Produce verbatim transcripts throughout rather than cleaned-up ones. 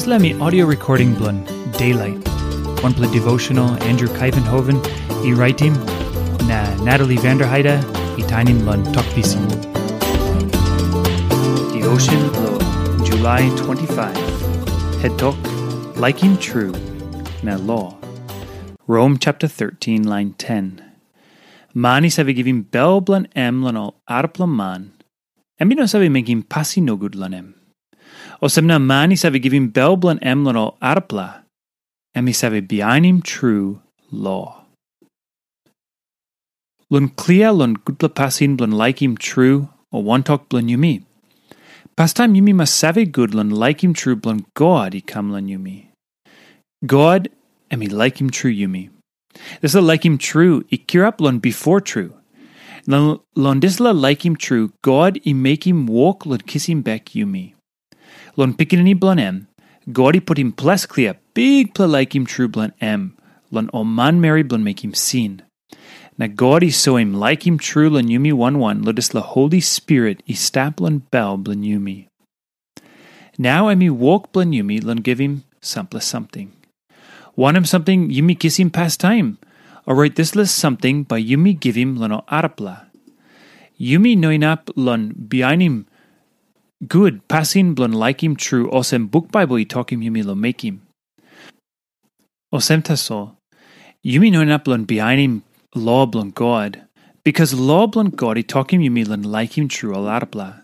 Dispela mi audio recording bilong Daylight, wanpela devotional Andrew Kaivenhoven i raitim, na Natalie Vanderheide i tainim long Tok Pisin. Devotion bilong July twenty-five. Het tok, laikim tru na lo. Rom chapter thirteen, line ten. Man i save givim bel bilong em long ol arapela man, em i no save mekim pasin nogut long em. Olsem na man i save givim bel bilong em long ol arapela, em i save bihainim tru lo. Long klia long gutpela pasin bilong laikim tru o wantok bilong yumi, pastaim yumi mas save gut long laikim tru bilong God i kam long yumi. God em i laikim tru yumi. Dispela laikim tru i kirap long bipo tru. Na long dispela laikim tru, God i mekim wok long kisim bek yumi. Long Pikinini bilong em, God i putim ples klia bikpela laikim tru bilong em long ol manmeri bilong mekim sin. Na God i soim laikim tru long yumi wan wan long dispela Holi Spirit i stap long bel bilong yumi. Nau em i wok bilong yumi long givim sampela samting. Wanem samting yumi kisim pastaim? Orait dispela samting bai yumi givim long ol arapela. Yumi no inap long bihainim gut pasin bilong laikim tru olsem buk Baibel i tokim yumi long mekim. Olsem tasol, yumi no inap long bihainim lo bilong God, bikas lo bilong God i tokim yumi long laikim tru ol arapela.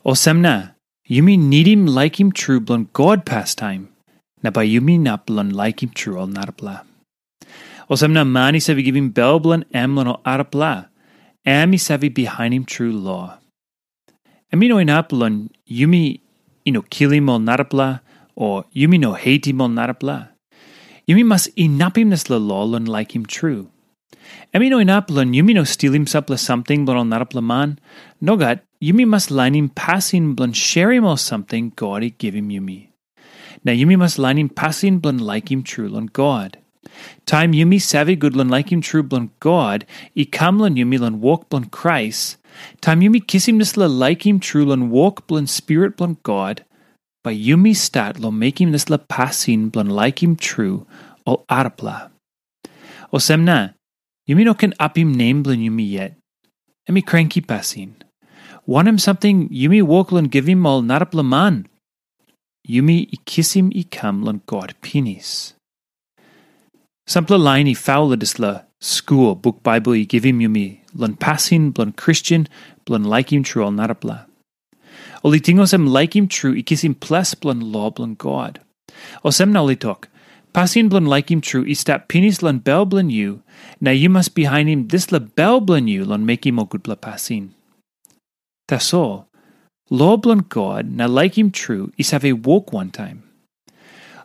Olsem na, yumi nidim laikim tru bilong God pastaim, na bai yumi inap long laikim tru ol narapela. Olsem na man i save givim bel bilong em long ol arapela, em i save bihainim tru lo. Em i no inap long yumi i no kilim ol narapela, o yumi no hetim ol narapela. Yumi mas inapim dispela lo long laikim tru. Em i no inap long yumi no stilim sampela samting bilong ol narapela man. Nogat, yumi mas lainim pasin bilong sherim ol samting God i givim yumi. Na yumi mas lainim pasin bilong laikim tru long God. Taim yumi save gut long laikim tru bilong God i kam long yumi long wok bilong Krais, taim yumi kisim dispela laikim tru long wok bilong Spirit bilong God, bai yumi stat long mekim dispela pasin bilong laikim tru ol arapela. Olsem na, yumi no ken apim nem bilong yumi yet. Em i kranki pasin. Wanem samting yumi wok long givim ol narapela man? Yumi i kisim i kam long God pinis. Sampela lain i faul long dispela skul buk Baibel i givim yumi long pasin bilong Kristen bilong laikim tru ol narapela. Ol i ting olsem laikim tru i kisim ples bilong lo bilong God. Olsem na ol i tok, pasin bilong laikim tru i stap pinis long bel bilong yu, na yu mas bihainim dispela bel bilong yu long mekim ol gutpela pasin. Tasol, lo bilong God na laikim tru i save wok wantaim.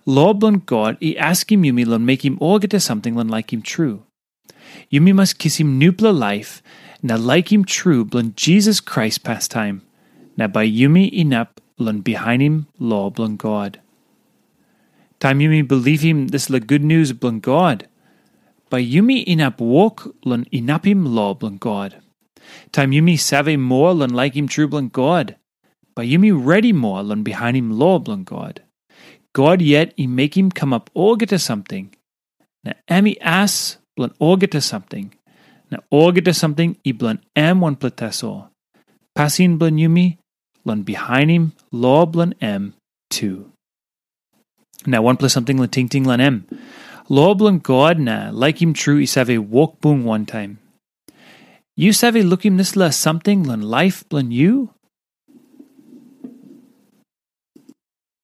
Lo bilong God i askim yumi long mekim olgeta samting long laikim tru. Yumi mas kisim nupela laip na laikim tru bilong Jisas Krais pastaim, na bai yumi inap long bihainim lo bilong God. Taim yumi bilipim dispela gutnius bilong God, bai yumi inap wok long inapim lo bilong God. Taim yumi save moa long laikim tru bilong God, bai yumi redi moa long bihainim lo bilong God. God yet i mekim kamap olgeta samting, na em i as bilong olgeta samting, na olgeta samting i bilong em wanpela tasol. Pasin bilong yumi long bihainim lo bilong em tu. Na wanpela samting long tingting long em. Lo bilong God na laikim tru i save wok bung wantaim. Yu save lukim dispela samting long laip bilong yu?